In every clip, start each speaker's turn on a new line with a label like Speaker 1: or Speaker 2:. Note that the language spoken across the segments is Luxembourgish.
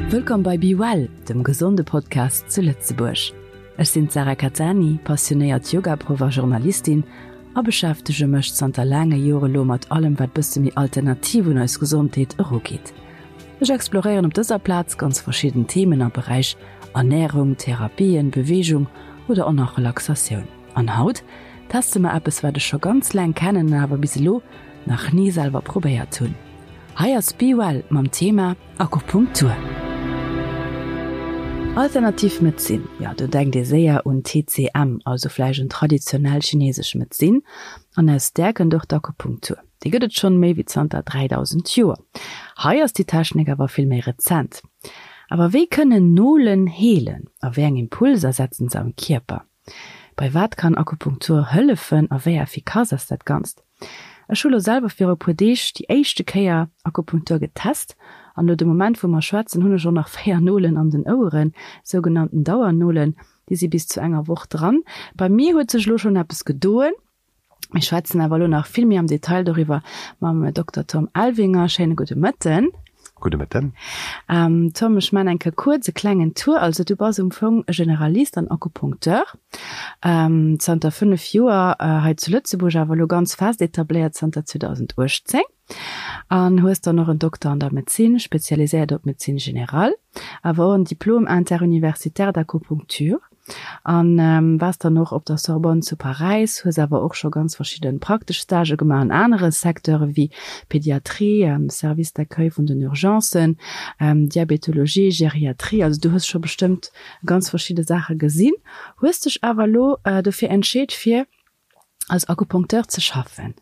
Speaker 1: Wëllkomm bei Be Well, dem gesonde Podcast zu Lëtzebuerg. Ech sinn d'Sarah Cattani, passionéiert Yogaproff a Journalistin a beschäftege mech zanter laange Jore lo mat allem wat bësse méi alternativ un eis Gesondheet erugeet. Ech exploréieren op dëser Plaz ganz verschidden Themen am Beräich Ernärung, Therapien, Beweegung oder och nach Relaxatioun. An haut teste mer eppes wat ech scho ganz laang kennen an awer bis elo nach ni selwer probéiert hunn. Hei ass Be Well mam Thema Akupunktur. Alternativ Medezin, jo do denkt ee séier un TCM, also vläicht un traditionell chinesesch Medezin an aus där kënnt och d'Akupunktur. Déi gëtt et schonn méi wéi zanter 3000 Joer. Hei ass déi Technik awer vill méi rezent. Awer wéi kënnen Nolen heelen a wéi eng Impulser setzen se am Kierper? Bei wat kann Akupunktur hëllefen a wéi effikass ass dat Ganzt? Ech hu lo selwer viru e puer Deeg déi éischte Kéier Akupunktur getest an lo de Moment wou mer schwätzen hunn ech och nach 4 Nolen an den Oueren, sougenannten Dauernolen, déi si bis zu enger Woch dran. Bei mir huet sech lo schonn eppes gedoen. Mir schwätzen awer elo nach vill méi am Detail doriwwer mam Dokter Tom Elvinger. Schéine gudde Mëtten.
Speaker 2: Gudde Mëtten.
Speaker 1: Tom, ech man eng Kéier kuerz e klengen Tour. Also du bass um Fong e Generalist an Akupunkteur, zanter 5 Joer hei zu Lëtzebuerg, awer elo ganz fest etabléiert zanter 2018. An hues dann och en Dokter an der Medezin, spezialiséiert op Médecine générale, awer och en Diplôme interuniversitaire d'acupuncture. An waars dann och op der Sorbonne zu Paräis, hues awer och scho ganz verschidde praktesch Stagë gemaach an anere Secteure wéi Pédiatrie, Service d'accueil vun den Urgencen, Diabetologie, Geriatrie. Also du hues scho bestëmmt ganz verschidde Saache gesinn, hues dech awer elo dofir entscheet fir als Akupunkteur ze schaffen.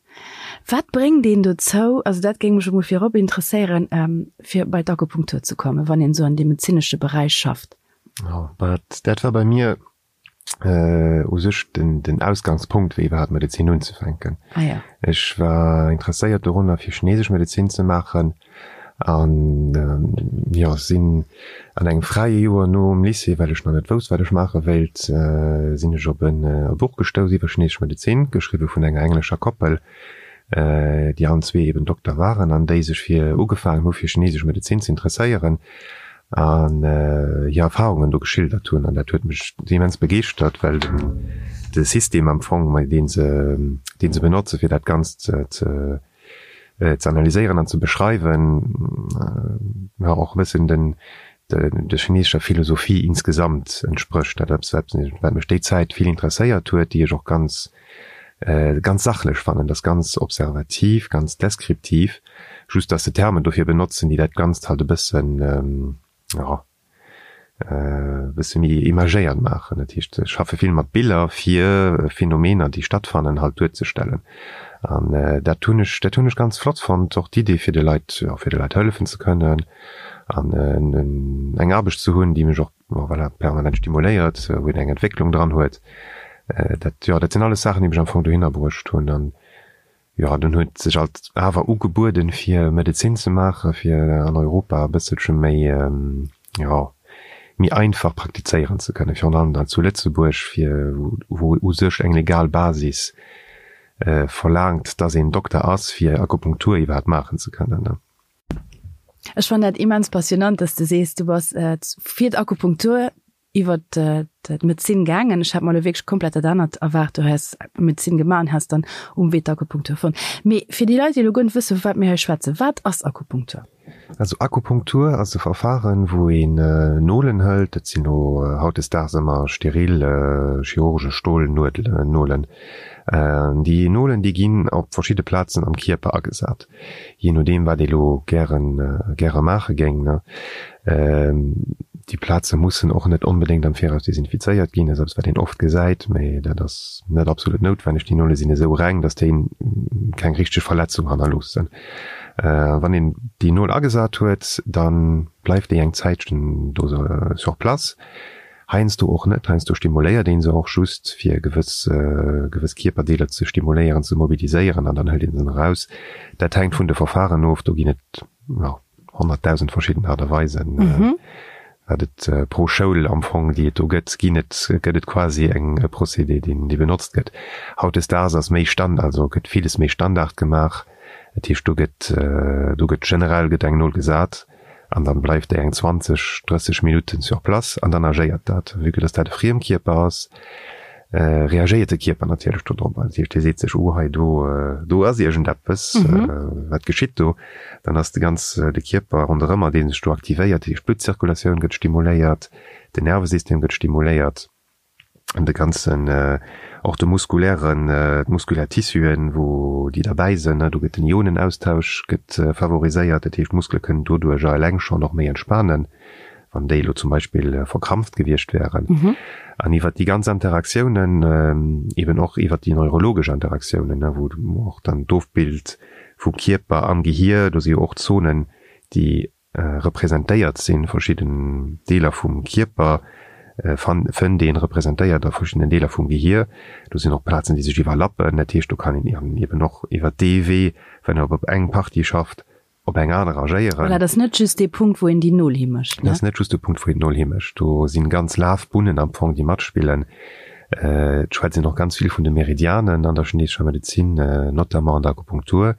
Speaker 1: Wat bréngt een dozou, also dat géing mech emol virop interesséieren, fir bei d'Akupunktur ze kommen, wann een esou an deem medezinesche Beräich schafft?
Speaker 2: Jo, dat war bei mir u sech den Ausgangspunkt, fir iwwerhaapt Medezin unzefänken. Ech war interesséiert dorunner, fir chinesesch Medezin ze maachen an jo, sinn an engem fräie Joer nom Lycée, well ech nach net wousst, wat ech maache wéilt, sinn ech op e Buch gestouss iwwer chinesesch Medezin, geschriwwe vun enger englescher Koppel, déi allen zwee eben Dokter waren an déi sech fir ugefaangen hu fir chinesesch Medezin ze interesséieren an hir Erfahrungen do geschildert hunn. An dat huet mech immens begeeschtert, well de System am Fong, dee se, dee se benotze fir dat Ganzt ze ze analyséieren an ze beschreiwen, jo och e bëssen den der chinesescher Philosophie insgesamt entsprécht. Dat ass eppes, wat mech déi Zäit vill interesséiert huet, déi ech och ganz ganz sachlech fannen. Dat ass ganz observativ, ganz deskriptiv, just datt se Termen dofir benotzen, déi dat Ganzt halt e bëssen, jo, e bësse méi imagéiert maachen. Dat heescht, se schaffe vill mat Biller, fir Phänomener, déi stattfannen, halt duerzestellen. An dat hunn ech, dat hunn ech ganz flott fonnt, och d'Idee, fir de Leit, jo, fir de Leit hëllefen ze kënnen an eng Aarbecht ze hunn, déi mech och, voilà, permanent stimuléiert, wou een eng Entwécklung dran huet. Dat, jo, dat sinn alles Saachen, déi mech am Fong dohinner bruecht hunn. An Jo, dunn huet sech alt awer ugebueden, fir Medezin ze maachen, fir an Europa e bësselche méi, jo, méi einfach praktizéieren ze kënnen, virun allem dann zu Lëtzebuerg, fir wou u sech eng legal Basis verlaangt, dass een Dokter ass, fir Akupunktur iwwerhaapt maachen ze kënnen.
Speaker 1: Ech fannen dat immens passionant, dass de sees, du bass fir d'Akupunktur iwwert d'Medezin gaangen. Ech hat mer elo wierklech komplett dat anert erwaart. Du häss Medezin gemaach an häss dann um Wee d'Akupunktur fonnt. Mee fir déi Leit, déi elo guer net wëssen, vu wat mir hei schwätzen, wat ass Akupunktur?
Speaker 2: Also Akupunktur ass e Verfahren, wou een Nolen hëlt, dat sinn elo hautdesdaags ëmmer steril chirurgesch Stolnuedelen, Nolen. Déi Nolen, déi ginn op verschidde Plazen am Kierper agesat. jee nodeem wat ee lo gären, gäre maache géing, ne. Déi Plaze mussen och net onbedéngt am Viraus desinfizéiert ginn, dat ass eppes wat een oft gesäit, mä dat ass net absolut noutwenneg. Déi Nole sinn esou reng, datt déi keng richteg Verletzung hannerloossen. Wann een déi Nol agesat huet, da bleift déi eng Zäitchen do sur place. Heiansdo och net, heiansdo stimuléiert een se och just fir gewëss gewëss Kierperdeeler ze stimuléieren, ze mobiliséieren an dann hëlt een se eraus. Dat hänkt vun de Verfahren of, do ginn et jo 100.000 verschidden Aart a Weisen, wat et pro Schoul am Fong déi et do gëtt, ginn et gëtt et quasi eng e Procédé deen dee benotzt gëtt. Hautdesdaags ass méi Stand also gëtt villes méi Standard gemaach, dat heescht do gëtt do gëtt generell gëtt eng Nol gesat. An dann bleift déi eng 20, 30 Minutten sur place an dann agéiert dat. Vue que dass dat e Friemkierper ass, reagéiert de Kierper natierlech do drop. Dat heescht, dee seet sech, oh hei do, do ass iergendeppes, wat geschitt do? Dann ass de ganz, de Kierper ronderëmmer, dee sech do aktivéiert. Dat heescht, d'Bluttzirkulatioun gëtt stimuléiert, den Nervesystem gëtt stimuléiert. An de ganzen, och de muskulären, d'muskulär Tissuen, wou déi derbäi sënn, do gëtt den Ionenaustausch gëtt favoriséiert. Dat heescht, d'Muskele kënnen doduercher eleng schonn och méi entspanen, wann déi elo zum Beispill verkrampft gewiescht wären. An iwwert déi ganz Interaktiounen, eben och iwwert déi neurologesch Interaktiounen, wou och dann d'Ofbild vum Kierper am Gehier, do si jo och Zonen, déi representéiert sinn, verschidden Deeler vum Kierper fënnt een representéiert a verschiddenen Deeler vum Gehier. Do sinn och Plazen, déi sech iwwerlappen. Dat heescht, do kann een eben och iwwer dee Wee, wann een op eng Partie schafft, op eng aner agéieren.
Speaker 1: Voilà, dat ass net just dee Punkt, wou een déi Nol himécht,
Speaker 2: ne? Dat ass net just de Punkt, wou een d'Nol himécht. Do sinn ganz Lafbunnen am Fong, déi matspillen. Et schwätzt een och ganz vill vun de Meridianen an der chinesescher Medezin, notamment an der Akupunktur.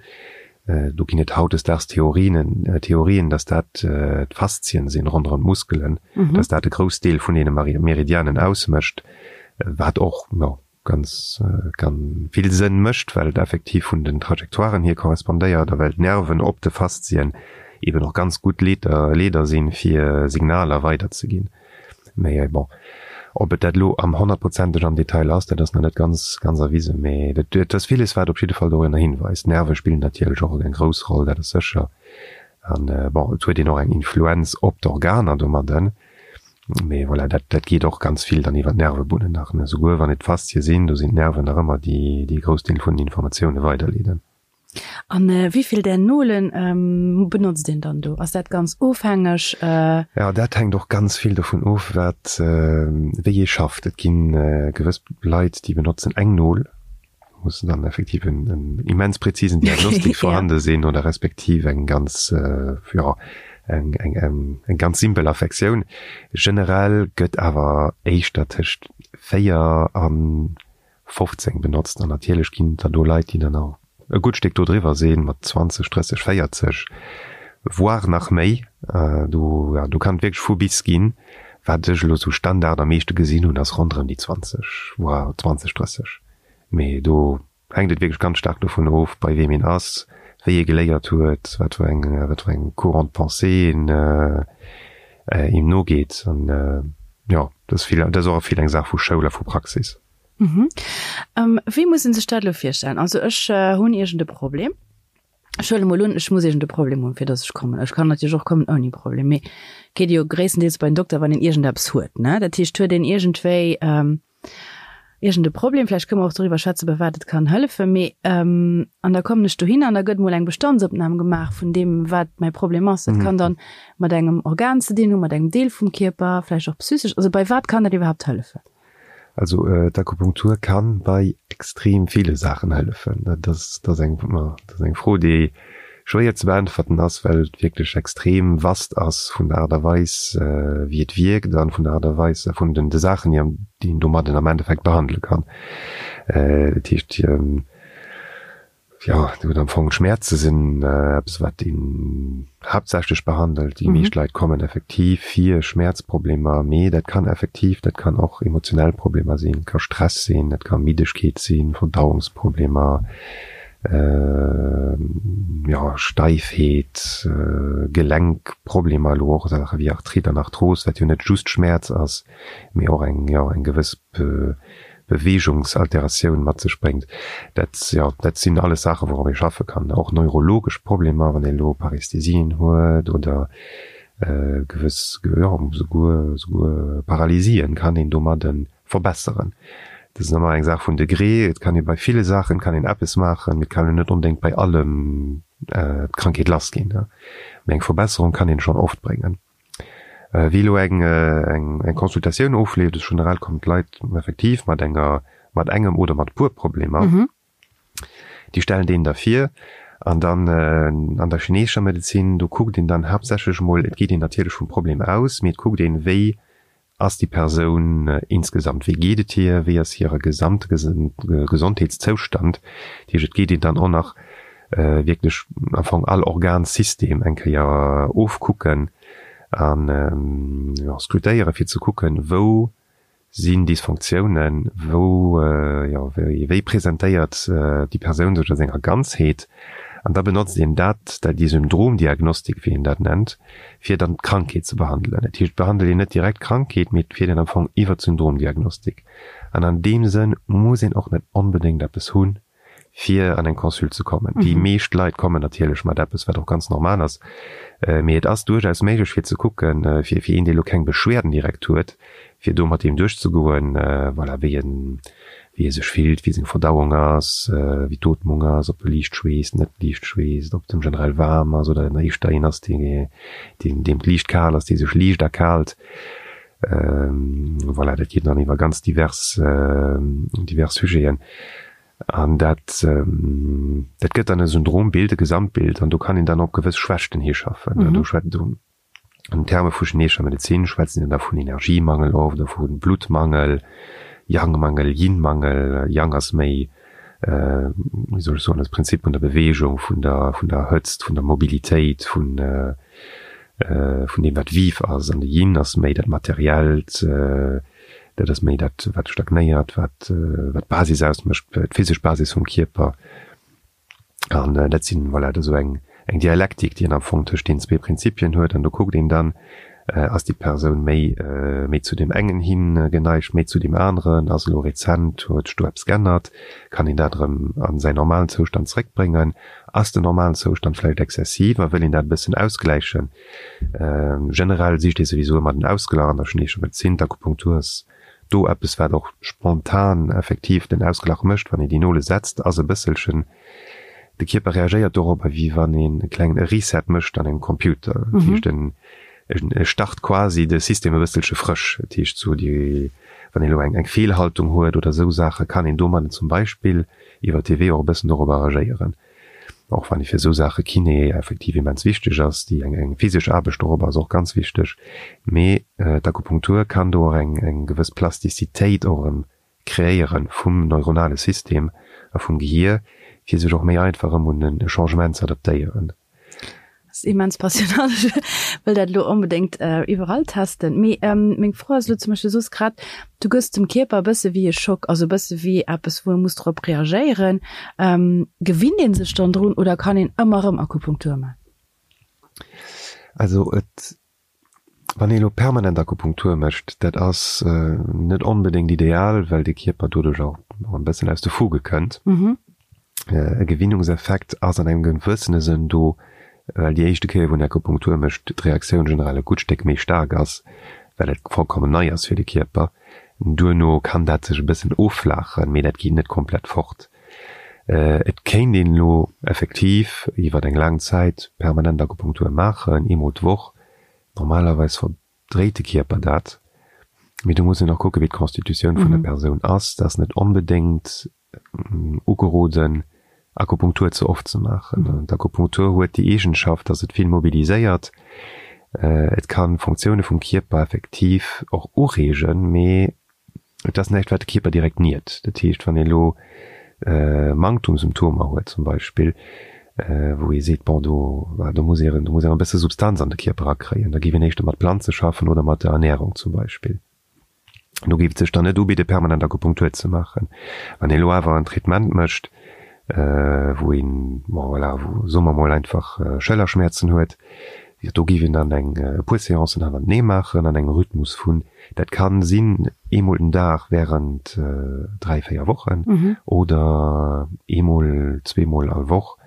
Speaker 2: Do ginn et hautdesdaags Theorien, Theorien, dass dat d'Faszien sinn ronderëm d'Muskelen, dass dat e grouss Deel vun deene Meridianen ausmécht, wat och, jo, ganz, ganz vill Sënn mécht, well et effektiv vun den Trajectoiren hier korrespondéiert a well d'Nerven op de Faszien eben och ganz gutt Leeder, Leeder sinn, fir Signaler weiderzeginn. Mee bon, ob et dat elo am honnertprozenteg am Detail ass, dat ass nach net ganz, ganz erwisen. Mee et, et ass villes, wat op jidde Fall dorinner hinweist. D'Nerve spillen natierlech och eng grouss Roll, dat ass sécher. An bon, et huet een och eng Influenz op d'Organer domadden. Mee voilà, dat, dat geet och ganz vill dann iwwer d'Nervebunnen nach, ne. Souguer wann et d'Faszie sinn, do sinn d'Nerven nach ëmmer déi, déi e grouss Deel vun den Informatioune weiderleeden.
Speaker 1: An wéivill där Nolen benotzt een dann do? Ass dat ganz ofhängeg?
Speaker 2: Jo, dat hänkt och ganz vill dovun of, wat, wéi ee schafft. Et gi gewëss Leit, déi benotzen eng Nol, do muss dann effektiv en immens präzisen Diagnostik vorhande sinn oder respektiv eng ganz, jo, eng, eng, eng ganz simpel Affektioun. Generell gëtt awer éischter tëscht 4 an 15 benotzt an natierlech ginn et der do Leit, déi dann och e gutt Stéck do driwwer sinn, mat 20, 30, 40, voire nach méi. Do, jo, do kann et wierklech vu bis ginn. Wat ech elo sou Standard am meeschte gesinn hunn, ass ronderëm déi 20, voire 20, 30. Mee do hänkt et wierklech ganz staark dovun of, bei weem een ass, wéi ee geléiert huet, wat fir eng, wat fir eng Courant de pensée een eem nogeet. An jo, dat ass vill, dat ass och vill eng Saach vu Schoul a vu Praxis.
Speaker 1: Mhm. Wéi muss een sech dat elo virstellen? Also ech hunn iergend e Problem. Ech huele mol un, ech muss iergend e Problem hunn, fir datt ech kommen. Ech kann natierlech och kommen ouni Problem, mee geet jo gréisstendeels bei den Dokter, wann een iergendeppes huet, ne? Dat heescht, huet een iergendwéi iergend e Problem, vläicht kënne mer och doriwwer schwätzen, bei wat et kann hëllefen, mee an da kommen ech dohin an da gëtt mol eng Bestandsopnam gemaach vun deem, wat mäi Problem ass. Dat kann dann mat engem Organ ze dinn hunn, mat engem Deel vum Kierper, vläicht och psychesch. Also bei wat kann dat iwwerhaapt hëllefen?
Speaker 2: Also d'Akupunktur kann bei extrem ville Saachen hëllefen. Dat ass, dat ass eng, dat ass eng Fro, déi schwéier ze beäntwerten ass, well et wierklech extrem vast ass vun der Aart a Weis, wéi et wierkt an vun der Aart a Weis a vun den de Saachen, déi déi een domadden am Endeffekt behandele kann. Dat heescht, Jo, gutt, am Fong d'Schmäerze sinn eppes, wat een haaptsächlech behandelt. Déi meescht Leit kommen effektiv fir Schmäerzproblemer, mee dat kann effektiv, dat kann och emotionell Problemer sinn, ka Stress sinn, dat ka Middegkeet sinn, Verdauungsproblemer, jo, Steifheet, Gelenkproblemer, elo och Saache wéi Arthrite an Arthros, wat jo net just Schmäerz ass, mee och eng, jo, eng gewëss Beweegungsalteratioun mat sech bréngt. Dat, jo, dat sinn alles Saachen, wourop ee schaffe kann. Och neurologesch Problemer, wann ee elo Parästhesien huet oder gewëss, jo, souguer, souguer Paralysien kann een domadde verbesseren. Dat ass ëmmer eng Saach vun Degré. Et kann ee bei ville Saachen kann een eppes maachen, mee et kann een net onbedéngt bei allem d'Krankheet lassginn. Mee eng Verbesserung kann een schonn oft bréngen. Wéi elo eng eng Consultatioun ofleeft, ass generell kommen d'Leit effektiv mat enger mat engem oder mat e puer Problemer. Déi stellen deen da vir an dann an der chineesescher Medezin, do kuckt een dann haaptsächlech emol, et geet een natierlech vum Problem aus, mee et kuckt een, wéi ass déi Persoun insgesamt, wéi geet et hir, wéi ass hire gesamte Gesondheetszoustand. Dat heescht, et geet een dann och nach. wierklech am Fong all Organsystem eng Kéier ofkucken an, jo, scrutéieren, fir ze kucken, wou sinn Dysfonctiounen, wou, jo, wéi, wéi presentéiert déi Persoun sech a senger Ganzheet? An da benotzt een dat, dat déi Syndromdiagnostik, wéi een dat nennt, fir dann d'Krankheet ze behandelen. Dat heescht, et behandelt een net direkt d'Krankheet, mee et fiert een am Fong iwwer d'Syndromdiagnostik. An an deem Sënn muss een och net onbedéngt eppes hunn, fir an eng Consult ze kommen. Déi meescht Leit kommen natierlech mat eppes, wat och ganz normal ass, mee et ass duerchaus méiglech fir ze kucken, fir fir een, dee lo keng Beschwerden direkt huet, fir do mat deem duerchzegoen, voilà, wéi en, wéi e sech fillt, wéi seng Verdauung ass, wéi d'Ootmung ass, ob e liicht schweesst, net liicht schweesst, ob et em generell waarm ass oder en éischter een ass, dee, deen, deem et liicht kal ass, dee sech liicht erkaalt. Voilà, dat geet dann iwwer ganz divers, divers Sujeten. An dat, dat gëtt dann e Syndrombild, e Gesamtbild, an do kann een dann op gewëss Schwächten hischaffen. Mm. Do schwätzt do an Terme vu chinesescher Medezin schwätzen een da vun Energiemangel oft oder vu Bluttmangel, Yang-Mangel, Yin-Mangel. Yang ass méi, wéi soll ech soen, das Prinzip vun der Bewegung, vun der, vun der Hëtzt, vun der Mobilitéit, vun, vun deem wat vif ass, an de Yin ass méi dat Materiellt, dat ass méi dat wat stagnéiert, wat wat d'Basis ausmécht, d'physesch Basis vum Kierper. An dat sinn, voilà, dat ass esou eng eng Dialektik, déi een am Fong tëscht deenen zwee Prinzipien huet. An do kuckt een dann, ass déi Persoun méi méi zu deem engen hi geneigt, méi zu deem aneren, ass elo rezent, huet sech do eppes g'ännert, kann een dat erëm a säin normalen Zoustand zréckbréngen, Ass den normalen Zoustand vläicht exzessiv a wëll een dat e bëssen ausgläichen? Generell sicht ee souwisou ëmmer den Ausglach an der chineescher Medezin. D'Akupunktur ass do eppes, wat och spontan effektiv den Ausglach mécht. Wann een déi Nole setzt, ass e bësselchen, de Kierper reagéiert dorobber, wéi wann een e klengen Reset mécht an engem Computer. Dat heescht, en e start quasi de System e bësselche frësch. Dat heescht, sou déi, wann een elo eng Feelhaltung huet oder esou Saachen, kann een domadden zum Beispill iwwer dee Wee och e bëssen dorobber agéieren. Och wann ee fir esou Saache Kiné effektiv immens wichteg ass, déi eng eng physesch Aarbecht dorobber ass och ganz wichteg, mee d'Akupunktur kann do och eng eng gewëss Plastizitéit och erëm kreéiere vum neuronale System a vum Gehier, fir sech och méi einfach erëm un e Changement ze adaptéieren.
Speaker 1: Ass immens passionant. Ech wëll dat elo onbedéngt iwwerall testen. Mee meng Fro ass elo zum Beispill, du soos grad, du gëss dem Kierper e bësse wéi e Schock, also e bësse wéi eppes, wou e muss drop reagéieren. Gewinnt ee sech dann drun oder kann een ëmmer erëm Akupunktur man?
Speaker 2: Also et Wann ee elo permanent Akupunktur mécht, dat ass net onbedéngt ideal, well de Kierper doduerch och e bëssen aus de Fuge kënnt. E Gewinnungseffekt ass an engem gewëssene Sënn do, well déi éischte Kéier, wou een Akupunktur mécht, d'Reaktioun generell e gutt Stéck méi staark ass, well et vollkommen nei ass fir de Kierper. Duerno kann dat sech e bëssen offlaachen, mee dat geet net komplett fort. Et kéint een elo effektiv iwwer eng laang Zäit permanent Akupunktur maachen, eemol d'Woch. Normalerweis verdréit de Kierper dat, mee do muss een och kucken, wéi d'Constitutioun vun der Persoun ass. Et ass net onbedéngt ugeroden, Akupunktur ze oft ze maachen. D'Akupunktur huet déi Eegenschaft, datt et vill mobiliséiert. Et kann Funktioune vum Kierper effektiv och ureegen, mee Et ass näischt, wat de Kierper direkt niert. Dat heescht, wann ee elo Manktumsymptomer huet zum Beispill, wou ee seet, bon, do, do muss ee, do muss een e bësse Substanz an de Kierper erakréien, da géif een éischter mat Planze schaffen oder mat der Ernärung zum Beispill. Do géif et sech dann net ubidde permanent Akupunktur ze maachen. Wann ee elo awer en Traitement mécht, wou een, bon voilà, wou, soe mer mol einfach Schëllerschmäerzen huet, jo do géif een dann eng e puer Seancen hannertenee maachen an engem Rhythmus vun, dat kann sinn eemol den Dag während 3, 4 Wochen oder eemol, zweemol all Woch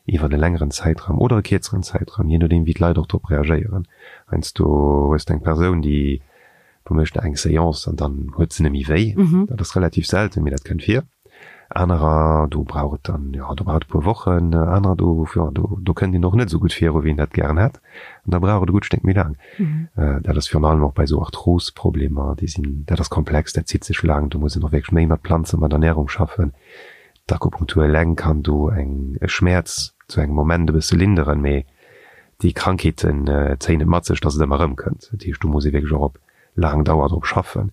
Speaker 2: iwwert e längeren Zäitraum oder e kierzeren Zäitraum, jee nodeem wéi d'Leit och drop reagéieren. Heiansdo hues de eng Persoun, déi Do mécht eng Seance an dann huet se nemmi wéi. Dat ass relativ selten, mee dat kënnt vir. Anerer, do brauch et dann, jo, do brauch et e puer Wochen. Anerer, do, jo, do, do kënnt een och net esou gutt viru wéi een dat gären hätt. An da brauch et e gutt Stéck méi laang. Dat ass virun allem och bei esou Arthrosproblemer, déi sinn, dat ass komplex, dat zitt sech laang. Do muss een och wierklech méi mat Planzen, mat Ernärung schaffen. D'Akupunktur eleng kann do eng, e Schmäerz zu engem Moment e bësse linderen, mee déi Krankheeten zéien et mat sech, dass et ëmmer erëmkënnt. Dat heescht, do muss ee wierklech och op laang Dauer drop schaffen.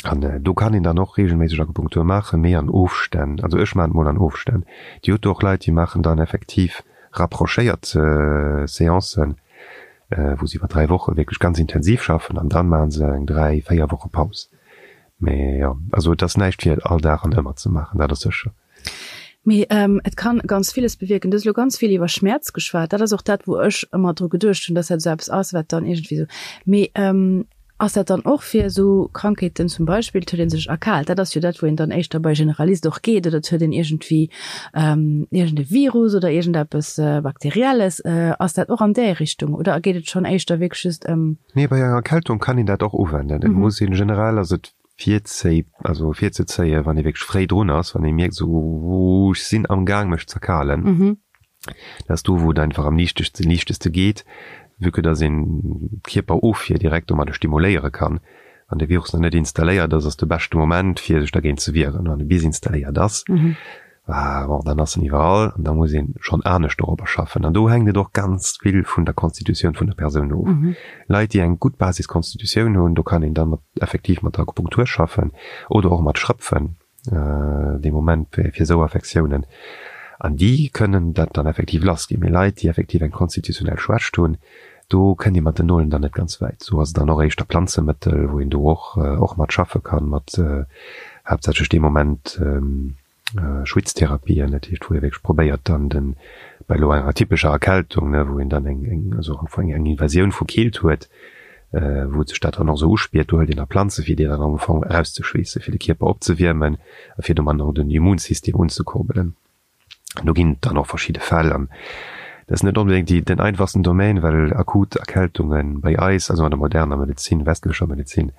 Speaker 2: An do kann een dann och reegelméisseg Akupunktur maachen, mee an Ofstänn. Also ech maachen et mol an Ofstänn. Dir hutt do och Leit, déi maachen dann effektiv rapprochéiert Seancen, wou se iwwer 3 Woche wierklech ganz intensiv schaffen an dann maache se eng 3, 4 Woche Paus. Mee jo, also et ass näischt fir all Dag an ëmmer ze maachen, dat ass sécher.
Speaker 1: Mee et kann ganz villes bewierken. Du hues elo ganz vill iwwer Schmäerz geschwat. Dat ass och dat, wou ech ëmmer dru geduecht hunn, dass dat esou eppes ass, wat dann iergendwéi esou. Mee ass dat dann och fir esou Krankheeten, zum Beispill, et huet ee sech erkaalt, dat ass jo dat, wou een dann éischter bei Generalist och geet, oder et huet een iergendwéi iergend e Virus oder iergendeppes Bakterielles. Ass dat och an där Richtung oder geet et schonn éischter wierklech just ëm.
Speaker 2: Nee, bei enger Erkältung kann een dat och uwenden. Et muss een generell, also et virzéi, also virzezéien, wann ee wierklech fréi drun ass, wann ee mierkt esou, Ooh, ech sinn am Gaang mech z'erkalen. Dat ass do, wou et einfach am liichtegste, liichteste geet, vue que dass een d'Kierperofwier direkt domadder stimuléiere kann. Wann de Virus nach net installéiert ass, ass de beschte Moment, fir sech dergéint ze wieren. Wann e bis installéiert ass, Ah bon, dann ass en iwwerall an da muss een schonn anescht dorobber schaffen. An do hänkt et och ganz vill vun der Constitutioun vun der Persoun of. Leit, déi eng gutt Basisconstitutioun hunn, do kann een dann mat effektiv mat der Akupunktur schaffen oder och mat Schrëpfen dee Moment fir esou Affektiounen. An déi kënnen dat dann effektiv lassginn. Mee Leit, déi effektiv eng konstitutionell Schwächt hunn, do kënnt ee mat den Nolen dann net ganz wäit. Do ass et dann och éischter Planzemëttel, wou een do och och mat schaffe kann, mat haaptsächlech dee Moment Schwitztherapien, dat heescht wou ee wierklech probéiert dann den, bei elo enger typescher Erkältung, ne, wou een dann eng eng also am Fong eng Invasioun vu Keelt huet, wou sech dat dann och esou uspiert, do hëlt een da Planze fir déi dann am Fong erauszeschweessen, fir de Kierper opzewiermen a fir domat och den Immunsystem unzekurbelen. Do ginn et dann och verschidde Fäll an dat ass net onbedéngt déi, den einfachsten Domaine, well akut Erkältunge bei eis, also an der moderner Medezin, westlecher Medezin,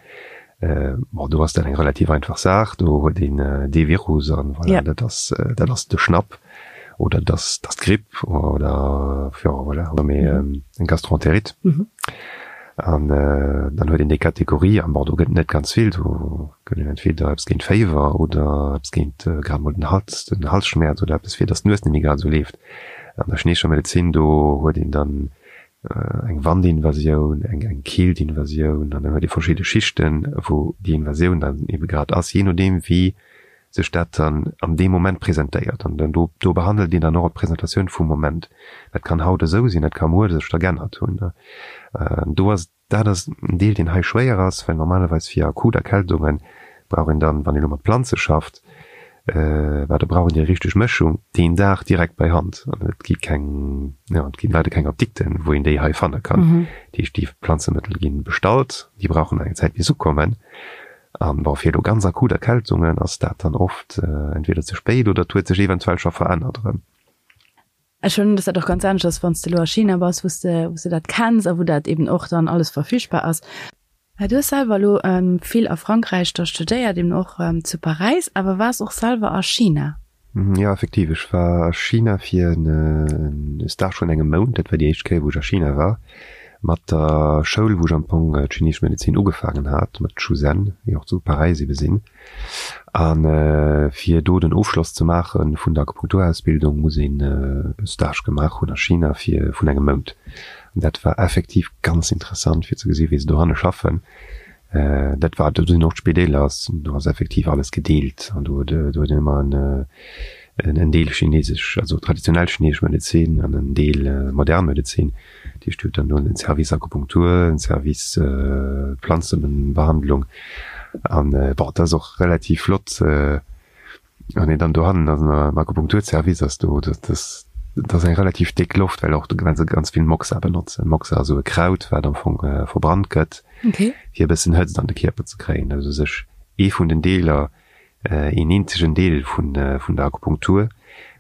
Speaker 2: bon, do ass dat eng relativ einfach Saach, do huet een dee Virus an voilà, dat ass, dat ass de Schnapp oder dat ass, dat ass d'Gripp oder jo voilà, oder méi eng Gastroentérite. An dann huet een déi Kategorie an bon, do gëtt et net ganz vill, do gëtt een entweder eppes géint Féiwer oder eppes géint grad mol den Hals, den Halsschmäerz oder eppes fir datt d'Nues net méi grad esou leeft. An der chineescher Medezin, do huet een dann eng Wandinvasioun, eng eng Keeltinvasioun an dann huet ee verschidde Schichten, wou déi Invasioun dann ebe grad ass, jee nodeem wéi sech dat dann an deem Moment presentéiert. An dann do do behandelt een dann och d'Presentatioun vum Moment. Dat kann haut esou sinn, dat ka muer sech da g'ännert hunn. Do ass, dat ass en Deel, deen hei schwéier ass, well normalerweis fir akut Erkältunge brauch een dann, wann een elo mat Planze schafft, well da brauch een déi richteg Mëschung deen Dag direkt bei Hand. An et gi keng, jo, et ginn leider keng Apdikten, wou een déi hei fanne kann. Dat heescht, déi Planzemëttel gi bestallt, déi brauchen eng Zäit bis se ukommen. An bon, fir elo ganz akut Erkältungen ass dat dann oft entweder ze spéit oder et huet sech eventuell scho verännert erëm.
Speaker 1: Ech huelen un, dass dat och ganz anescht ass, wann s de elo a China bass, wou s de, wou s de dat kenns a wou dat eben och dann alles verfügbar ass. Du hues selwer elo vill a Frankräich da studéiert, eben och zu Paräis, awer waars och selwer a China.
Speaker 2: Jo, effektiv, ech war a China fir e Stage vun engem Mount. Dat war déi éischt Kéier, wou ech a China war. Mat der Schoul, wou ech am Fong d'chineesesch Medezin ugefaangen hat, mat Shuzen, déi och zu Paräis ebe sinn. A fir do den Ofschloss ze maache vun der Akupunkturausbildung, muss een e Stage gemaach hunn a China fir vun engem Mount. An dat war effektiv ganz interessant, fir ze gesi wéi se dohanne schaffen. Dat war, do sinn och d'Spideeler, do ass effektiv alles gedeelt an do huet een ëmmer en en Deel chinesesch, also traditionell chinesesch Medezin an en Deel modern Medezin. Dat heescht, dir hutt dann do en Service Akupunktur, en Service Planzebehandlung an bon, dat ass och relativ flott. Wann een dann dohannen ass am Akupunkturservice ass, do dat ass dat ass eng relativ déck Loft, well och well se ganz vill Moxa benotzen. Moxa ass esou e Kraut, wat am Fong verbrannt gëtt,
Speaker 1: Okay.
Speaker 2: fir e bëssen Hëtzt an de Kierper ze kréien. Dat ass u sech ee vun den Deeler, een eenzegen Deel vun vun der Akupunktur,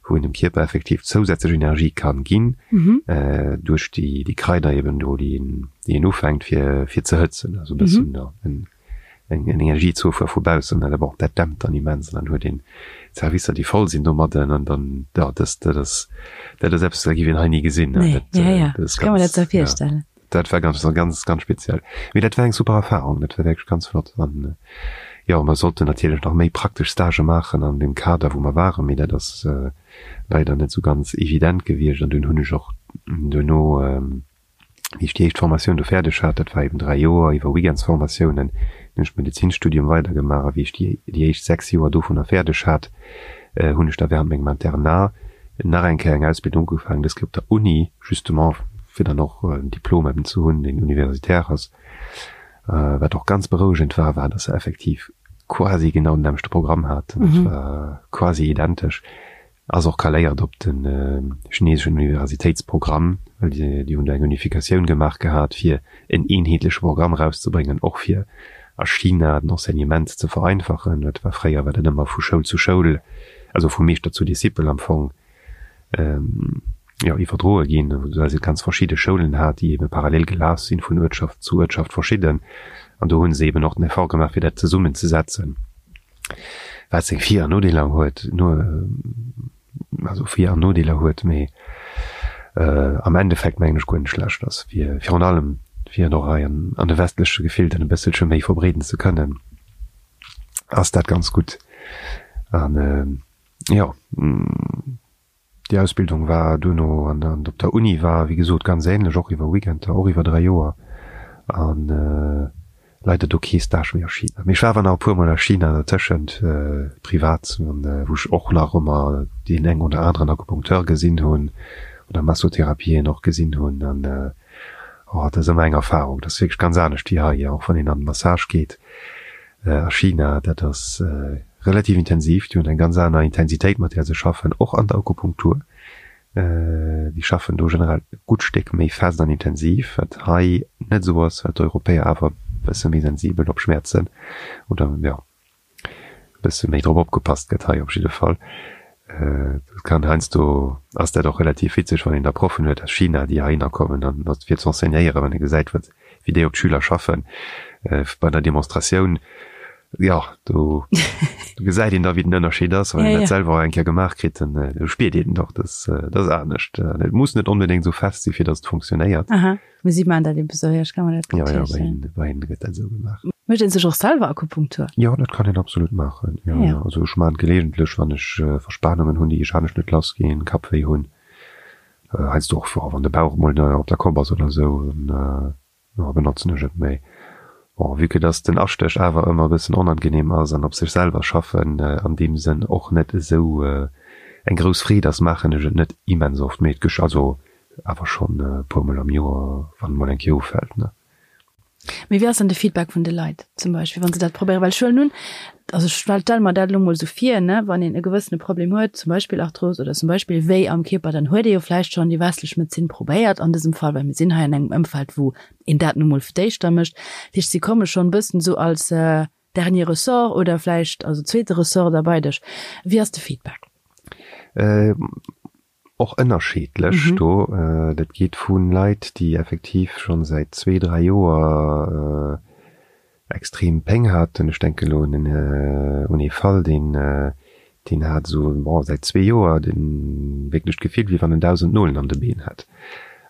Speaker 2: wou een dem Kierper effektiv zousätzlech Energie kann ginn, duerch déi déi Kraider eben do, déi een déi een ufänkt fir fir ze hëtzen, also e bëssen en eng Energiezufuer vu baussen, an bon, dat dämpt dann immens an dann huet een Servicer, déi voll sinn domadden an dann, jo, dat, dat ass, dat ass eppes, dat géif een hei ni gesinn.
Speaker 1: Nee, dat, ja, ja. Dat ass ganz, kann mer dat sou virstellen.
Speaker 2: Ja, dat war ganz, ganz, ganz speziell. Mee dat war eng super Erfahrung, dat war wierklech ganz flott an jo, mer sollten natierlech nach méi praktesch Stagë maachen an deem Kader, wou mer waren, mee dat ass leider net sou ganz evident gewiescht an dunn hunn ech och duerno. Wéi ech déi éischt Formatioun do fäerdeg hat, dat war eben 3 Joer iwwer Weekendsformatiounen, hunn ech d'Medezinstudium weidergemaach a wéi ech déi déi éischt 6 Joer dovunner fäerdeg hat, hunn ech da während mengem Internat nach eng Kéier eng Ausbildung ugefaangen, dës Kéier op der Uni, justement fir dann och en Diplom eben ze hunn, deen universitaire ass. Wat och ganz berouegend war, war, dass se effektiv quasi genau den nämmlechte Programm haten, dat war quasi identesch. Ass och kaléiert op de chineseschen Universitéitsprogramm, well déi hunn do eng Unifikatioun gemaach gehat, fir en eenheetleche Programm erauszebréngen, och fir a China den Enseignement ze vereinfachen. Dat war fréier war dat ëmmer vu Schoul zu Schoul, also vu Meeschter zu Discipel am Fong, jo, iwwerdroe ginn, well se ganz verschidde Schoulen hat, déi ebe parallel gelaf sinn, vun Uertschaft zu Uertschaft verschidden. An do hu se eben och den Effort gemaach, fir dat zesummenzesetzen. Wat seng Vir an Nodeeler huet, no, also Vir an Nodeeler huet, mee am Endeffekt mengen ech guer net schlecht ass, fir virun allem fir et och hei an an de westleche Gefilden e bësselche méi verbreeden ze kënnen, ass dat ganz gutt. An jo. Déi Ausbildung war duerno an an op der Uni war wéi gesot ganz ähnlech, och iwwer Weekender, och iwwer 3 Joer an leider do kee Stage méi a China. Mee ech war awer nach e puer mol a China dertëschent, privat, an wou ech och nach ëmmer deen eng oder aneren Akupunkteur gesinn hunn oder Massotherapien och gesinn hunn an oh dat ass ëmmer eng Erfahrung, dat ass wierklech ganz anescht wéi hei, och wann een an den Massage geet. A China, dat ass relativ intensiv, déi hunn eng ganz aner Intensitéit, mat där se schaffen, och an der Akupunktur. Déi schaffen do generell e gutt Stéck méi fest an intensiv, wat hei net esou ass, well d'Europäer awer e bësse méi sensibel op Schmäerzen oder, jo, e bësse méi drop opgepasst gëtt hei op jidde Fall. Dat kann heiansdo ass dat och relativ witzeg, wann een da Proffen huet aus China, déi heihinner kommen an dat fir z'enseignéieren, wann ee gesäit, wat wéi déi op d'Schüler schaffen bei der Demonstratioun. Jo, do gesäit een da wéi den Ënnerscheed ass, wann een dat selwer och eng Kéier gemaach kritt, dann do spiert een och, dass dat ass anescht. Et muss net onbedéngt esou fest si fir datt et funktionéiert.
Speaker 1: Aha, mee si maachen dat ebe sou, jo, ech ka mer dat gutt
Speaker 2: virstellen. Jo, jo, bei hinne gëtt dat esou gemaach.
Speaker 1: Mécht een sech och selwer Akupunktur?
Speaker 2: Jo, dat kann een absolut maachen, jo, jo. Also ech maachen et gelegentlech, wann ech Verspanungen hunn, déi ech anescht net lass ginn, Kappwéi hunn. Heiansdo och wann de Bauch emol op der Kopp ass oder esou, dann benotzen ech et. Mee bon, vue que dass den Astéch awer ëmmer e bëssen onangenehm ass an op sech selwer schaffen an deem Sënn och net esou eng grouss Freed ass, maachen ech et net immens oft. Mee et gesch also awer schonn e puer mol am Joer, wann et mol eng Kéier ufält, ne.
Speaker 1: Mee wéi ass dann de Feedback vun de Leit zum Beispill, wann se dat probéieren? Well ech huelen un, also ech stelle mer dat elo mol esou vir, ne, wann een e gewëssene Problem huet, zum Beispill Arthros oder zum Beispill Wéi am Kierper, dann huet ee jo vläicht schonn déi westlech Medezin probéiert an dësem Fall, well mir sinn hei an engem Ëmfeld, wou een dat nu mol fir d'éischter mécht. Dat heescht, si komme schonn e bëssen esou als dernier ressort oder vläicht also zweete Ressort da bei dech. Wéi ass de Feedback?
Speaker 2: Och ënnerscheedlech do. Dat geet vu Leit, déi effektiv schonn säit zwee, dräi Joer extrem Péng haten. Ech denken elo un un ee Fall, deen deen hat esou, bon, säit zwee Joer de wierklech d'Gefill, wéi wann en 1.000 Nolen an de Been hätt.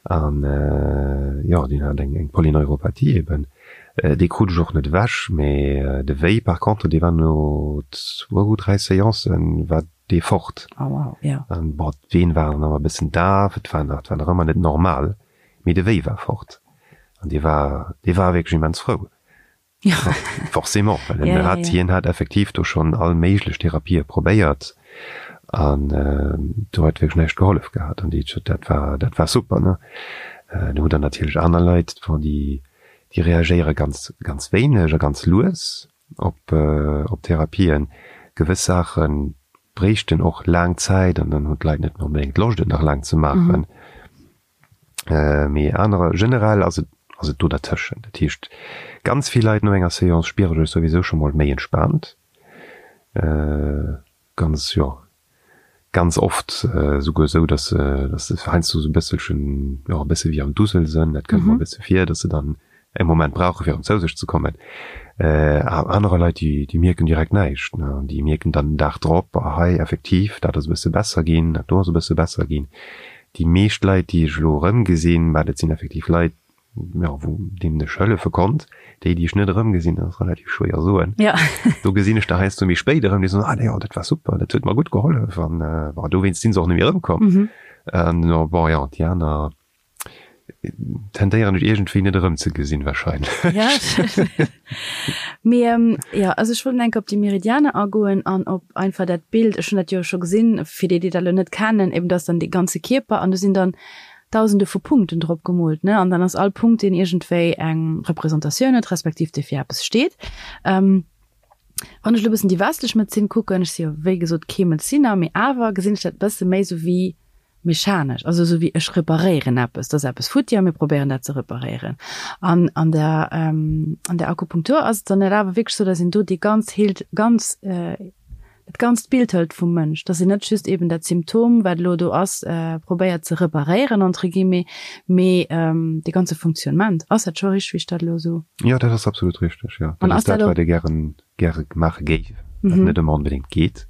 Speaker 2: An jo, deen hat eng eng Polyneuropathie eben. Dee krut ech och net ewech, mee de Wéi par contre, dee war no zwou, dräi Seancen war dee fort.
Speaker 1: Oh wow, ja.
Speaker 2: An bon, d'Ween waren awer e bëssen daf, et war nach, et war nach ëmmer net normal, mee de Wéi war fort. An dee war, dee war wierklech immens frou.
Speaker 1: Ja.
Speaker 2: Forcément, well en hat, hien hat effektiv do schonn all méiglech Therapië probéiert an do huet wierklech näischt gehollef gehat. An déi, dat war, dat war super, ne. Du hutt der natierlech aner Leit, bon, déi, déi reagéiere ganz, ganz wéineg a ganz lues. op op Therapien. Gewëss Saache bréichten och laang Zäit an dann hunn d'Leit net méi onbedéngt Loscht et nach laang ze maachen. Mee anerer, generell ass et ass et do dertëschent. Dat heescht ganz vill Leit no enger Seance spiere sech souwisou scho mol méi entspaant. Ganz, jo, ganz oft souguer esou, dass se, dass se heiansdo esou e bësselchen, jo, e bësse wéi am Dusel sënn. Dat kënnt mer e bësse vir, dass se dann e Moment brauche fir erëm zou sech ze kommen. Anerer Leit, déi, déi mierken direkt näischt, ne. Déi mierken dann den Dag drop, ah hei, effektiv, dat ass e bësse besser ginn, dat do ass e bësse besser ginn. Déi meescht Leit, déi ech elo erëmgesinn, mä dat sinn effektiv Leit, jo, wou deenen ech hëllefe konnt, déi, déi ech net erëmgesinn, dat ass relativ schwéier soen.
Speaker 1: Ja.
Speaker 2: Do gesinn ech der heiansdo méi spéit erëm, déi soen, ah jo, dat war super, dat huet mer gutt gehollef an bon, dowéinst sinn se och net méi erëmkomm. An bon, jo, déi aner, Tendéieren ech iergendwéi net erëmzegesinn wahrscheinlech.
Speaker 1: Ja, mee jo, also ech wollt enke op déi Meridianer agoen an op einfach dat Bild, ech hunn dat jo scho gesinn, fir déi, déi dat elo net kennen, eben dass dann dee ganze Kierper an do sinn dann Dausende vu Punkten drop gemoolt, ne, an dann ass all Punkt, deen iergendwéi eng Representatioun huet, respektiv dee fir eppes steet. Wann ech elo e bëssen déi westlech Medezin kucken, ech si jo wéi gesot kee Medezinner, mee awer gesinn ech dat e bësse méi sou wéi mechanesch, also esou wéi ech reparéieren eppes, et ass eppes futti a mir probéieren dat ze reparéieren. An an der an der Akupunktur ass et dann net awer wierklech esou, datt een do déi ganz heelt, ganz dat ganzt Bild hëlt vum Mënsch, datt een net just eben dat Symptom, wat elo do ass, probéiert ze reparéieren entre guillemets, mee dee ganze Funktionnement. Ass dat scho richteg, wéi ech dat elo esou?
Speaker 2: Jo, dat ass absolut richteg, jo. Dat ass dat, wat ee gären gäre maache géif, wat net ëmmer onbedéngt geet,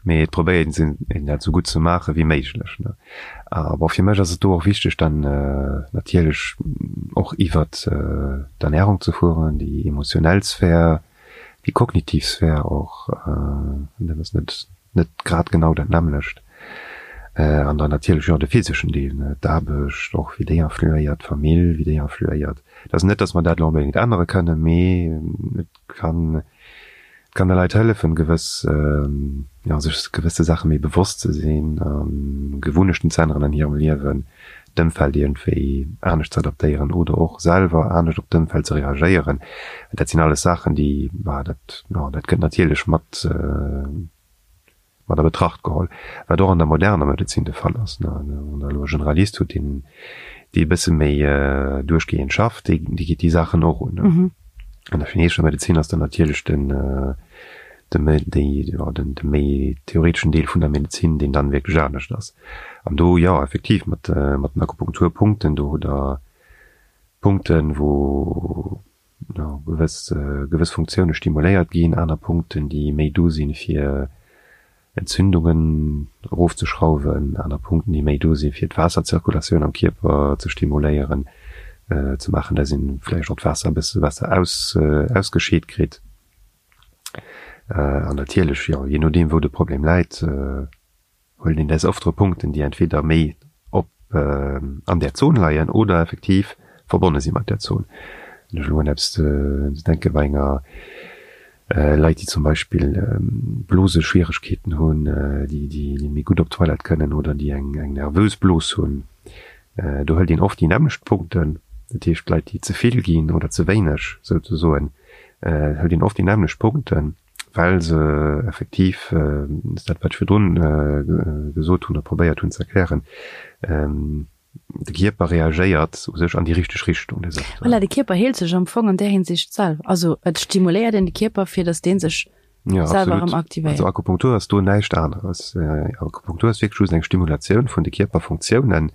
Speaker 2: mee et probéiert een een dat esou gutt ze maache wéi méiglech. A bon, fir mech ass et do och wichteg dann natierlech och iwwert d'Ernärung ze fueren, déi emotionell Sphär, déi kognitiv Sphär och, dat ass net net grad genau dat nämmlecht. An dann natierlech jo de physeschen Deel, d'Aarbecht och, wéi déi influéiert, d'Famill, wéi déi influéiert. Et ass net, datt mer dat elo onbedéngt ännere kënnen, mee et kann et kann de Leit hëllefen, gewëss, jo, sech gewësse Saache méi bewosst ze sinn a Gewunnechten ze änneren an hirem Liewen, d'Ëmfeld iergendwéi anescht ze adaptéieren oder och selwer anescht op d'Ëmfeld ze reagéieren. Dat sinn alles Saachen, déi, bah, dat, jo, dat gëtt natierlech mat, mat a Betracht geholl, wat och an der moderner Medezin de Fall ass. Wann Der elo e Generalist hutt, deen, dee e bësse méi duerchgehend schafft, dee, dee geet déi Saachen och un. An der chineesescher Medezin ass dann natierlech den, de méi, déi, jo, den, de méi theoreteschen Deel vun der Medezin, deen dann wierklech anescht ass. An do, jo, effektiv, mat, mat den Akupunkturpunkten, do hutt Der Punkten, wou, jo, gewëss, gewëss Funktioune stimuléiert ginn, aner Punkten, déi méi do sinn, fir Entzündungen erofzeschrauwen, aner Punkten, déi méi do sinn, fir d'Waasserzirkulatioun am Kierper ze stimuléieren, ze maachen, dass een vläicht och d'Waasser e bësse besser aus, ausgescheet kritt. An natierlech, jo, jee nodeem, wou de Problem läit, huelen een des Öftere Punkten, déi entweder méi op an där Zon leien oder effektiv verbonne si mat där Zon. Wann ech elo un eppes denke bei enger Leit, déi zum Beispill Bloseschwieregkeeten hunn, déi déi méi gutt op d'Toilette kënnen oder déi eng eng nervös Blos hunn, do hëlt een oft déi nämmlecht Punkten. Dat heescht, Leit, déi ze vill ginn oder ze wéineg souzesoen, hëlt een oft déi nämmlecht Punkten. well se effektiv, dat ass dat wat ech virdrun gesot hunn oder probéiert hunn ze erklären, de Kierper reagéiert u sech an déi richteg Richtung.
Speaker 1: Voilà, de Kierper heelt sech am Fong an där Hinsicht selwer. Also et stimuléiert een de Kierper, fir datt dee sech selwer erëm aktivéiert.
Speaker 2: Also Akupunktur ass do näischt aneres. Akupunktur ass wierklech just eng Stimulatioun vun de Kierperfunktiounen,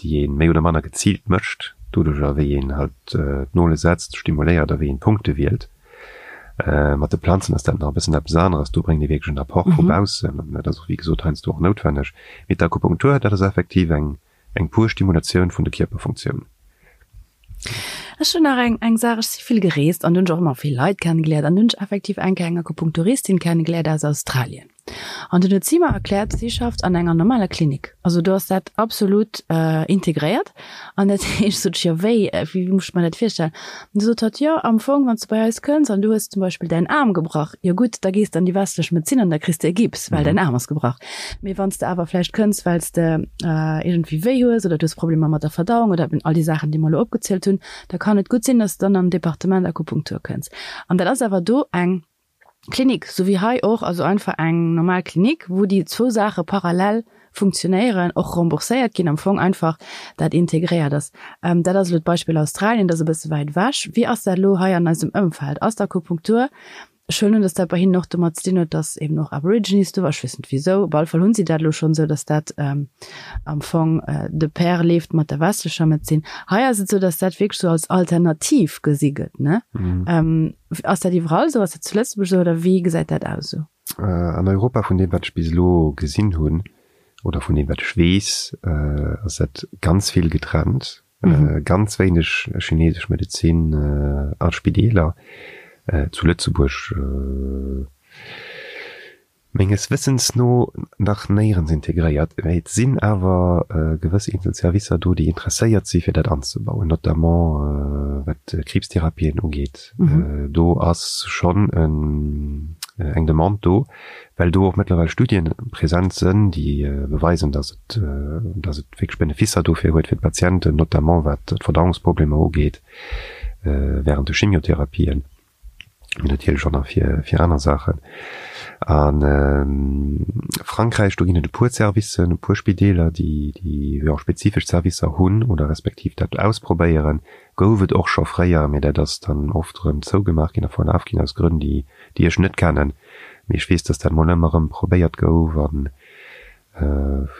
Speaker 2: déi ee méi oder manner geziilt mécht, doduercher wéi een halt d'Nole setzt, stimuléiert a wéi een d'Punkte wielt. Mat de Planzen ass dat nach e bëssen eppes aneres, do bréngt ee wierklech en Apport vu baussen an dat ass och wéi gesot heiansdo och noutwenneg. Mee d'Akupunktur, dat ass effektiv eng eng pur Stimulatioun vun de Kierperfunktiounen.
Speaker 1: Ech hunn nach eng eng Saach, ech si vill gereest an hunn ech och ëmmer vill Leit kennegeléiert an hunn ech effektiv eng Kéier eng Akupunkturistin kennegeléiert aus Australien. An dunn huet si mer erkläert, si schafft an enger normaler Klinik. Also do ass dat absolut integréiert. An dat heescht, sot ech, jo wéi, wéi muss ech mer dat virstellen? An du sot hatt, jo am Fong, wann s du bei eis kënns an du hues zum Beispill däin Aarm gebrach, jo gutt, da gees de an déi westlech Medezin an da kriss de e Gips, well däin Aarm ass gebrach. Mee wann s de awer vläicht kënns, well s de iergendwéi wéi hues oder du hues Problemer mat der Verdauung oder eben all déi Saachen, déi mer elo opgezielt hunn, da kann et gutt sinn, dass de dann an den Departement Akupunktur kënns. An dat ass awer do eng Klinik, sou wéi hei och, also einfach eng normal Klinik, wou déi zwou Saache parallel funktionéieren, och rembourséiert ginn, am Fong einfach dat integréiert ass. Dat ass elo d'Beispill Australien, dat ass e bësse wäit ewech. Wéi ass dat elo hei an eisem Ëmfeld? Ass d'Akupunktur, ech huelen un, datt dat bei hinnen och domat ze dinn huet, datt eben och Aborigines do waren, ech weess net wisou, op alle Fall hunn si dat elo schonn esou, datt dat am Fong de pair leeft mat der westlecher Medezin. Hei ass et esou, datt dat wierklech esou als Alternativ gesi gëtt, ne? Ass dat iwwerall esou? Ass dat zu Lëtzebuerg esou oder wéi gesäit dat aus esou?
Speaker 2: An Europa, vun deem wat ech bis elo gesinn hunn oder vun deem wat ech weess, ass dat ganz vill getrennt. Ganz wéineg chinesesch Medezin a Spideeler. Zu Lëtzebuerg. Menges Wëssens no nach néierens integréiert, mä et sinn awer gewëss eenzel Servicer do, déi interesséiert si fir dat anzebauen, notamment wat d'Kriibstherapien ugeet. Do ass schonn eng Demande do, well do och mëttlerweil Studien present sënn, déi beweisen, datt et, datt et wierklech Beneficer dofir huet fir d'Patienten, notamment wat d'Verdauungsproblemer ugeet während de Chimiotherapien. mee natierlech och nach fir, fir aner Saachen. A Frankräich, do ginn et e puer Servicen, e puer Spideeler, déi, déi jo spezifesch Servicer hunn oder respektiv dat ausprobéieren. Gouf et och scho fréier, mee dat ass dann oft erëm zougemaach ginn a verlaf ginn aus Grënn, déi, déi ech net kennen. Mee ech weess, dass dat mol ëmmer erëm probéiert gouf an,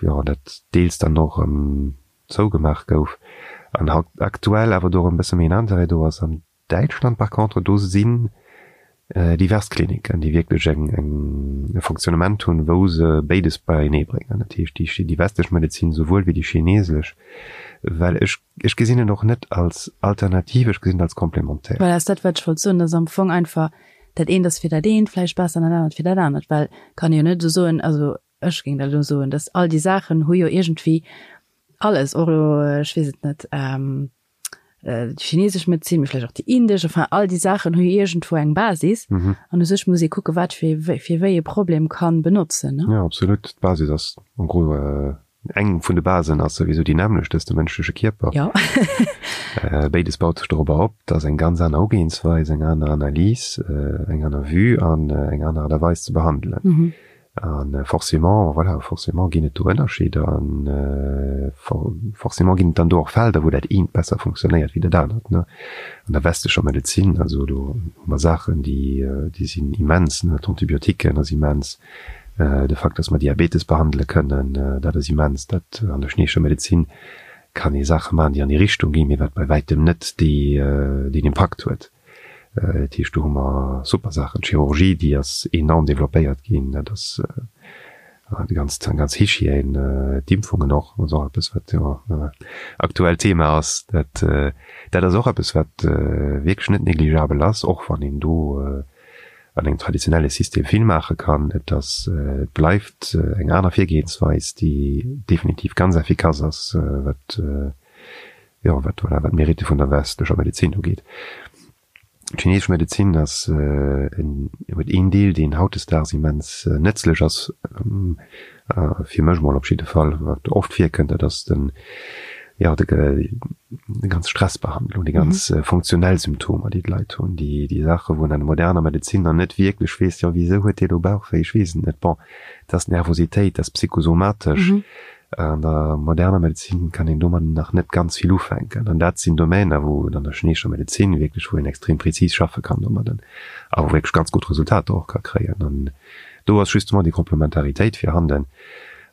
Speaker 2: jo, dat deels dann och erëm zougemaach gouf an haut aktuell awer do erëm e bësse méi en Interêt do ass. An Däitschland par contre, do sinn divers Kliniken, déi wierklech eng eng e Fonctionnement hunn, wou se béides beienee bréngen, dat heescht déi déi westlech Medezin souwuel wéi déi chinesesch, well ech ech gesinn et och net als Alternativ, ech gesinn et als Complémentaire.
Speaker 1: Voilà, ass dat wat ech wollt soen, dass am Fong einfach dat eent ass fir dat eent vläicht besser an dat anert fir dat anert, well kann ee jo net esou soen, also ech géing dat elo soen, dass all déi Saachen hu jo iergendwéi alles, och elo, ech weess et net, déi chinesesch Medezin, mee vläicht och déi indesch, enfin all déi Saachen hu jo iergendwou eng Basis an u sech muss ee kucke wat fir fir wéi e Problem kann benotzen, ne?
Speaker 2: Jo, absolut. D'Basis ass en gros, eng vun de Basen ass souwisou déi nämmlecht, dat ass de mënschleche Kierper.
Speaker 1: Jo.
Speaker 2: Béides baut sech dorobber op. Dat ass eng ganz aner Ugeeënsweis, eng aner Analys, eng aner Vue an eng aner Aart a Weis ze behandelen. A forcément, voilà, forcément ginn et do Ënnerscheeder an forcément ginn et dann do och Felder, wou dat eent besser funktionéiert wéi dat anert, ne. An der westlecher Medezin, also do hu mer Saachen, déi, déi sinn immens, ne. D'Antibiotiquen ass immens, de Fakt, dass mer Diabetes behandele kënnen, dat ass immens. Dat an der chineescher Medezin kann ee Saache maachen, déi an déi Richtung ginn, mee wat bei wäitem net déi, deen Impakt huet. Dat heescht, do hu mer super Saachen. D'Chirurgie, déi ass enorm développéiert ginn. Dat ass déi ganz, ganz Hygiène, d'Impfungen och, ass och eppes, wat jo aktuell Thema ass. Dat, dat ass och eppes, wat wierklech net négligeabel ass, och wann een do an engem traditionelle System vill maache kann. Et ass, et bleift eng aner Virgehensweis, déi definitiv ganz effikass ass, wat jo, wat, voilà, wat d'Meritte vun der westlecher Medezin ugeet. D'chinesesch Medezin ass en, huet een Deel, deen hautdesdaags immens nëtzlech ass, fir mech mol op jidde Fall, wat oft virkënnt, dat ass den, jo, de, déi ganz Stressbehandlung, déi ganz funktionell Symptomer, déi d'Leit hunn, déi, déi Saache wou een an der moderner Medezin nach net wierklech weess, jo, wisou huet dee lo Bauchwéi, ech weess et net, bon, dat ass Nervositéit, dat ass psychosomatesch. An der moderner Medezin kann een domadden nach net ganz vill ufänken. An dat sinn Domäner, wou et an der chineescher Medezin wierklech, wou een extrem prezis schaffe kann domadden a wou wierklech ganz gutt Resultater och ka kréien. An do ass justement déi Komplementaritéit virhanden.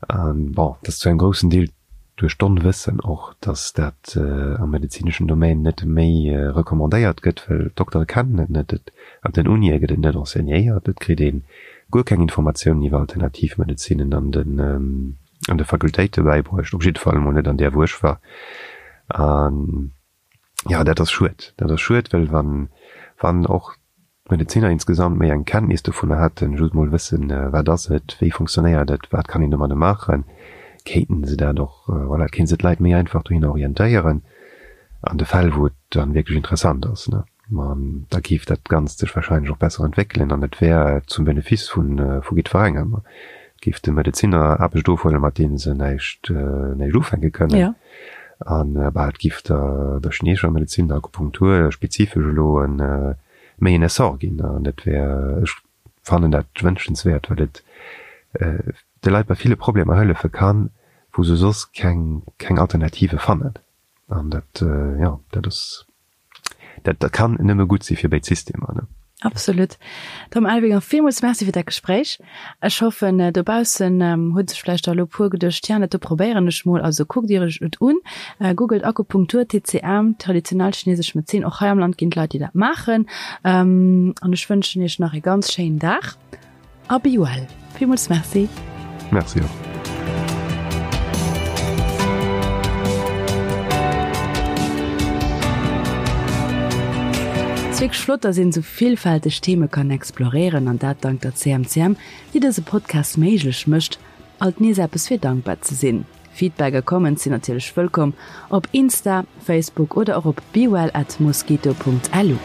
Speaker 2: An bon, et ass zu engem groussen Deel duerch d'Onwëssen och, dass dat am medezineschen Domaine net méi recommandéiert gëtt, well d'Doktere kennen et net, et an den Unie gëtt et net enseignéiert, et kritt ee guer keng Informatiounen iwwer Alternativmedezinen an den an de Fakultéite bäibruecht, op jidde Fall emol net an där wou ech war. An jo, dat ass schued. Dat ass schued, well wann wann och d'Medeziner insgesamt méi eng Kenntnis dovunner hätten, just mol wëssen, wat ass et, wéi funktionéiert et, wat kann een domadde maachen, kéinten se dat och, voilà, kéinte se d'Leit méi einfach dohinner orientéieren an de Fäll wou et dann wierklech interessant ass, ne. Ma da géif dat Ganzt sech wahrscheinlech och besser entwéckelen an et wär zum Benefice vu vu jiddwerengem. Et géif de Medezinner Aarbecht ofhuelen, mat deene se näischt näischt ufänke kënnen. An bah, et géif der der chineesescher Medezin, der Akupunktur spezifesch elo e méi en Essor ginn. An dat wär, ech fannen dat wënschenswäert, well et de Leit bei ville Problemer hëllefe kann, wou se soss keng keng Alternative fannen. An dat, jo, dat ass. Dat dat kann nëmme gutt si fir béid Systemer, ne?
Speaker 1: Absolut. Tom Elvinger, villmools Merci fir dat Gespréich. Ech hoffen, dobaussen hu sech vläicht der elo e puer geduecht, Tiens, dat do probéieren ech mol. Also kuckt Iech et un, googelt Akupunktur, TCM, traditionell chinesesch Medezin. Och hei am Land ginn et Leit, déi dat maachen. An ech wënschen Iech nach e ganz schéinen Dag. A be well. Villmools Merci.
Speaker 2: Merci och.
Speaker 1: Ass wierklech flott, dass een esou villfälteg Theme kann exploréieren an dat dank der CMCM, déi dëse Podcast méiglech mécht. Alt nees eppes fir dankbar ze sinn. Feedback a Comments sinn natierlech wëllkomm op Insta, Facebook oder och op bewell at mosquito.lu.